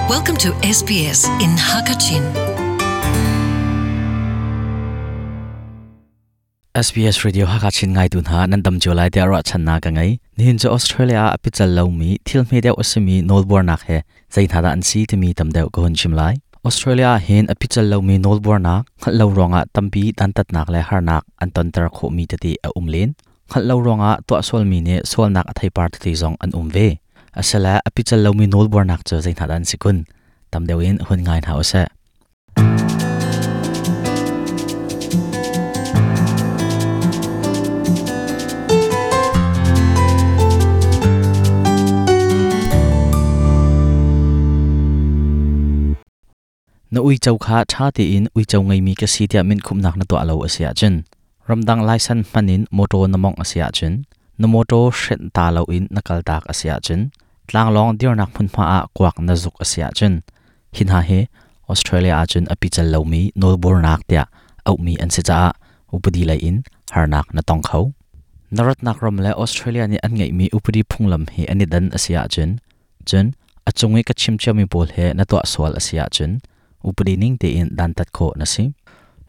Welcome to SBS in Hakachin. SBS Radio Hakachin ngaitu hna nan dam cio lai tiah ruahchannak ka ngei. Nihin cu Australia ah a pical lomi thil hme deuh a simi nawlbuarnak he zei hna dah an si timi tam deuh ka hun chim lai. Australia ah hin a pical lomi nawlbuarnak hngalh lo ruangah tampi dantatnak le harnak an tonter khawhmi tete a um len. Hngalh lo ruangah tuah sualmi nih sualnak a theipar tete zong an um ve. Asile a pical lomi nawlbuarnak cu zei hna dah an si kun? Tam deuh in hun ngai hna usih. Na uico kha ṭha tein uico ngeimi ka si tiah minkhumhnak na tuah lo a si ahcun, ramdang laisan hman in mawṭaw na mawngh a si ahcun, na mawṭaw hrenh ta loin na kaltak a si ahcun, tlanglawng dirnak hmunhma ah kuak na zuk a si ahcun, hi hna hi Australia ahcun a pical lomi nawlbuarnak tiah auhmi an si caah upadi lei in harnak na tong kho. Na ratnak ram le Australia nih an ngeihmi upadi phunglam hi an i dan a si ahcun, Cun a cung i ka chim ciami pawl he na tuah sual a si ahcun upadi ning tein dantat khawh na si.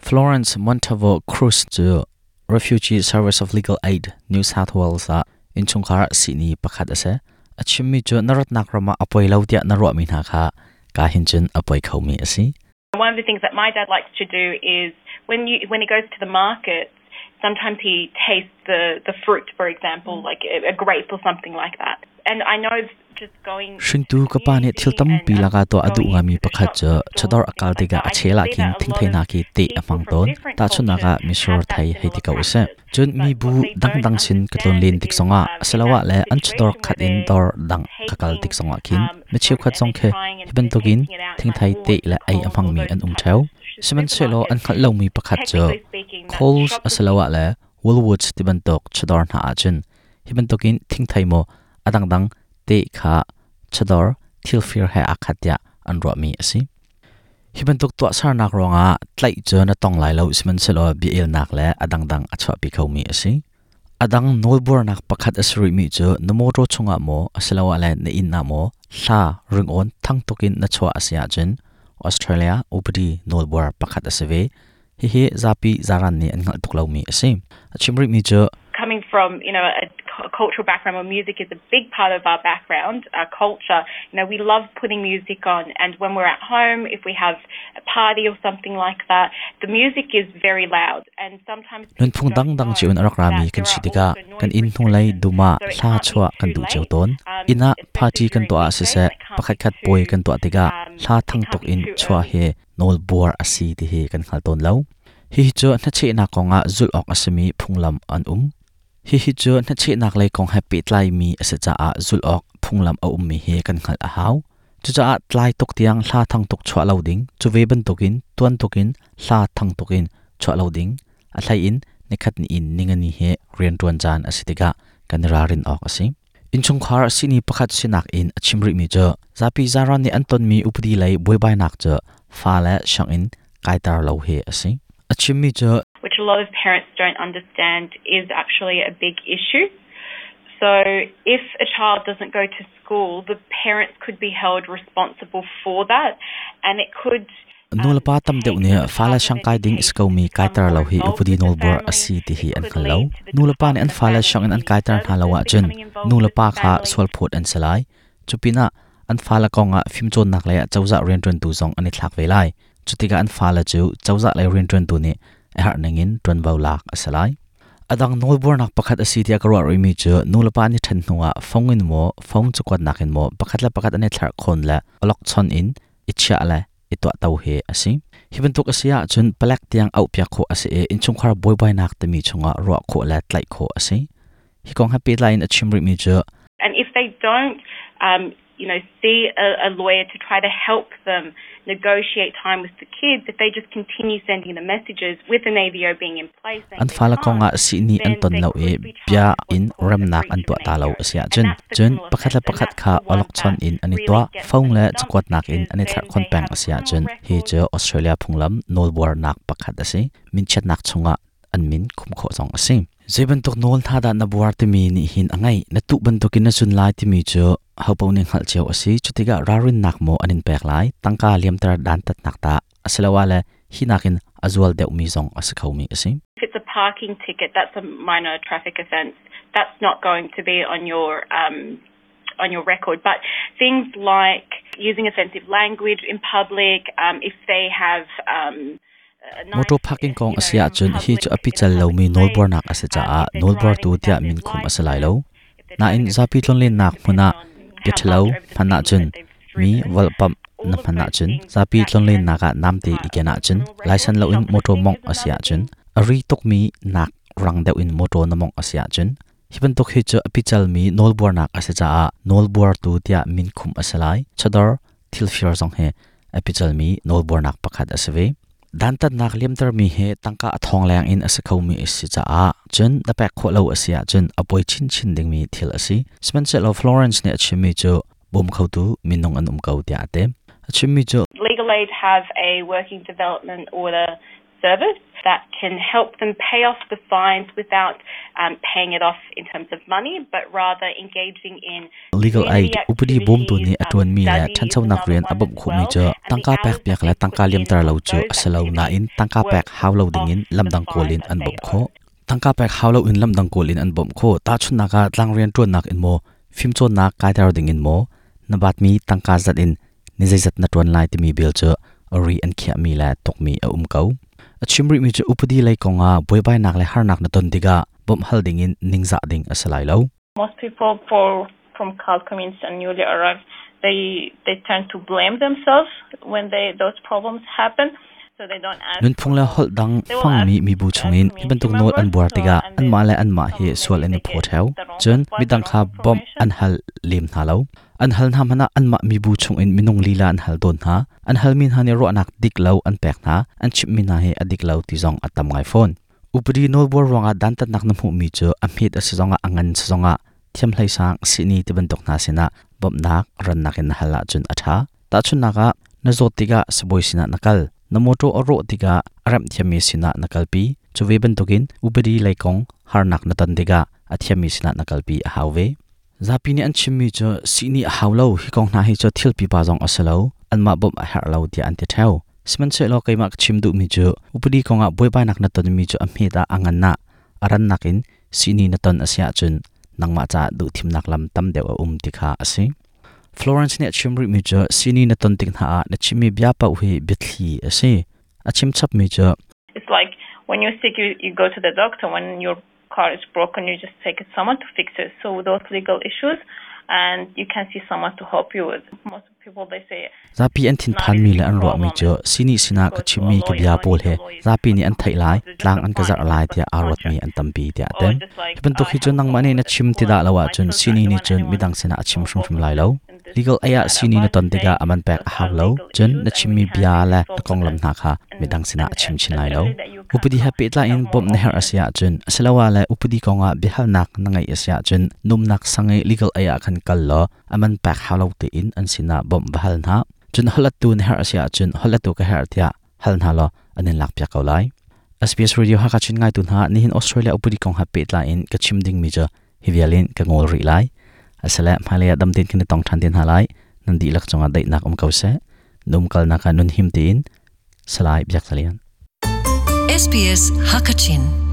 Florence Montalvo Cruz cu Refugee Service of Legal Aid New South Wales ah innchungkhar sihni pakhat a si. A chimmi cu na ratnak ram ah a poi lo tiah na ruahmi hna kha ka hin cun a poi khomi a si. One of the things that my dad likes to do is when he goes to the market, sometimes he tastes the fruit, for example, like a grape or something like that. And I know just going Hringtu ka pa nih thil tampi lakah tuah a duh ngaimi pakhat cu chawdawr a kal tikah a chel ah khin thingthei khi teh a hmang tawn. Tahchunhnak ah misur thei hei ti ko usih. Cun mibu dangdang sin ka tlun len tik zongah asiloah le an chawdawr khat in dawr dang ka kal tik zongah khin mi cheukhat zong khi hi bantukin thingthei teh le ei a hmangmi an um ṭheo. Sihmanhsehlaw an hngalh lomi pakhat cu Coles asiloah le Woolworths ti bantuk chawdawr hna ahcun hi bantukin thingthei maw a dangdang teh kha chawdawr thilfir he aa khat tiah an ruahmi a si. Hi bantuk tuahsernak ruangah tlaih cu na tong lai lo sihmanhsehlaw bia-elnak le a dangdang a chuahpi khomi a si. A dang nawlbuarnak pakhat a si rihmi cu na mawṭaw chungah maw asiloah le na inn ah maw hla ringawn thang tukin na chuah a si ahcun Australia upadi nawlbuar pakhat a si ve. Hihi zapi zaran nih an hngalh tuk lomi a si. A chim rihmi cu coming from you know a cultural background where music is a big part of our background, our culture. You know, we love putting music on, and when we're at home, if we have a party or something like that, the music is very loud. And sometimes Nunphung dangdang cio in a rak rami kan si tikah kan inn hnulei dum ah hla chuah kan duh cio tawn. Inn ah party kan tuah ah siseh, pakhatkhat puai kan tuah tikah hla thang tuk in chuah hi nawlbuar a si ti hi kan hngal tawn lo. Hihi cu hnachehnak kongah zulh awk a simi phunglam an um. Hihi cu hnachehnak lei kong he pehtlaimi a si caah zulh awk phunglam a ummi hi kan hngalh a hau. Cucaah tlai tuk tiang hla thang tuk chuah lo ding, cu ve bantukin tuan tukin hla thang tuk in chuah lo ding, a hlei in nikhat ni in ningani hi rianṭuan caan a si tikah kan i ralrin awk a si. Innchungkhar sihni pakhat sinak in a chim rihmi cu zapi zaran nih an tonmi upadi lei buaibainak cu fale sianginn kaiter lo hi a si. A chimmi cu which a lot of parents don't understand is actually a big issue. So if a child doesn't go to school, the parents could be held responsible for that and it could Nulepa tam deuh nih fale siangkai ding is komi kaiter lo hi upadi nawlbuar a si ti hi an hngal lo. Nulepa nih an fale sianginn an kaiter hna lo ahcun nulepa kha sualphawt an si lai. Cupinah an fale kongah fimcawnnak lei ah cozah rianṭuantu zong an i thlak ve lai. Cutikah an fale cu cozah lei rianṭuantu nih a herh ningin ṭuanvo lak a si lai. A dang nawlbuarnak pakhat a si tiah ka ruah rihmi cu nulepa an i ṭhen hnuah fong in maw, phone cakuatnak in maw pakhat le pakhat an i thlerhkhawn le awlokchon in i chiah le i tuahto hi a si. Hi bantuk a si ahcun palek tiang auhpiak khawh a si i innchungkhar buaibainak timi chungah ruah khawh le tlaih khawh a si. Hi kong he pehtlai in a chim rihmi cu And if they don't see a lawyer to try to help them negotiate time with the kids, if they just continue sending the messages with an AVO being in place, an fale kongah sihni an ton lo i bia in remnak an tuah ta lo a si ahcun cun pakhat le pakhat kha awlokchon in an i tuah phone le cakuatnak in an i thlerhkhon peng a si ahcun hi cu Australia phunglam nawlbuarnak pakhat a si minchiatnak chungah an min khum khawh zong a si. Zei bantuk nawl hna dah na buar timi nih hin a ngeih. Na tuh bantukin na zun lai timi cu hopaoh nih hngalh cio a si. Cutikah ralrinnak maw an in pek lai, tangka liamter dantatnak dah asiloah le hi nakin a zual deuhmi zong a si khomi a si. If it's a parking ticket, that's a minor traffic offence. That's not going to be on your on your record. But things like using offensive language in public, if they have Motor parking kong a si ahcun hi cu a pical lomi nawlbuarnak a si caah nawlbuartu tiah minkhum a si lai lo. Nain zapi tlonlennak hmun ah bia ṭhalo hman ahcun, mi volhpamh na hman ahcun, zapi tlonlennak ah namte i ken ahcun, laisan loin motor mawngh a si ahcun, a ri tukmi nak rang deuh in motor na mawngh a si ahcun, hi bantuk hi cu a picalmi nawlbuarnak a si caah nawlbuartu tiah minkhum a si lai. Chawdawr thilfir zong hi a picalmi nawlbuarnak pakhat a si ve. Dantatnak liamtermi hi tangka a thong leng in a si khomi a si caah cun na pek khawh lo a si ahcun a poi chinchin dingmi thil a si. Sihmanhsehlaw Florence nih a chimmi cu bawm khotu minung an um ko tiah a ti. A chimmi cu Legal Aid have a working development order service that can help them pay off the fines without paying it off in terms of money, but rather engaging in Legal Aid upadi bawmtu nih a ṭuanmi le ṭhanchonak rian a bawmh khawhmi cu tangka pekpiak le tangka liamter lo cu a si lo nain tangka pek hau lo dingin lamdang kawl in an bawmh khawh. Tangka pek hau loin lamdang kawl in an bawmh khawh. Tahchunhnak ah tlangrian ṭuannak in maw, fimcawnnak kaiter dingin maw, na batmi tangka zat in ni zeizat na ṭuan lai timi bill cu a ri an khiahmi le tukmi a um ko. A chim rihmi cu upadi lei kongah buaibainak le harnak na ton tikah bawmh hal dingin ningzah ding a si lai lo. Most people from CALD communities and newly arrived, they tend to blame themselves when those problems happen. Nunphung le holh dang hmangmi mibu chungin hi bantuk nawl an buar tikah anmah le anmah hi sual an i phaw ṭheo. Cun midang kha bawmh an hal lem hna lo. An hal hna hmanh ah anmah mibu chungin minung lila an hal tawn hna. An halmi hna nih ruahnak dik lo an pek hna. An chimhmi hna hi a dik lo ti zong a tam ngai fawn. Upadi nawlbuar ruangah dantatnak na hmuhmi cu a hmet a si zongah a ngan si zongah thiamhleisang sihni ti bantuk hna sinah bawmhnak rannak in na hal ahcun a ṭha. Tahchunhnak ah, na zawt tikah sibawi sinah na kal. Na mawṭaw a rawh tikah a remh thiammi sinah na kalpi. Cu ve bantukin upadi lei kong harnak na ton tikah a thiammi sinah na kalpi a hau ve. Zapi nih an chimmi cu sihni a hau lo, hi kong hna hi cu thil pipa zong a si lo, anmah bawmh a herh lo tiah an ti ṭheo. Sihmanhsehlaw keimah ka chim duhmi cu upadi kongah buaibainak na tonmi cu a hmet ah a ngan ah a rannak in sihni na ton a si ahcun nangmah caah duhthimnak lam tam deuh a um ti kha a si. Florence nih a chim rihmi cu sihni na ton tik hna ah na chimmi bia paoh hi biathli a si. A chim chapmi cu It's like when you're sick, you go to the doctor. When your car is broken, you just take it someone to fix it. So those legal issues, and you can see someone to help you with. Most people they say Zapi an thinphanmi le an ruahmi cu sihni sinah ka chimmi ka bia pawl he zapi nih an theih lai, tlang an ka zarh lai tiah aa ruatmi an tampi tiah a ti. Hi bantuk hi cu nangmah nih na chim ti dah lo ahcun sihni nih cun midang sinah a chim hrimhrim lai lo. Legal aid ah sihni na ton tikah a man pek a hau lo. Cun na chimmi bia le na konglam hna kha midang sinah a chim chin lai lo. Upadi he pehtlai in bawmh na herh a si ahcun asiloah le upadi kongah biahalnak na ngeih a si ahcun numnak sang i legal aid ah khan kal law a man pek hau lo tein an sinah bawmh va hal hna. Cun holhlettu na herh a si ahcun holhlettu ka herh tiah hal hna law an in lakpiak ko lai. SBS Radio Hakha Chin ngaitu hna nihin Australia upadi kong he pehtlai in ka chim dingmi cu hi vial in ka ngawl rih lai. Asile hmailei ah dam tein kan i tong ṭhan te hna lai. Nan dihlak cungah daihnak um ko seh. Na umkalnak ah nun him tein Salai Biak Za Lian. SBS Hakachin.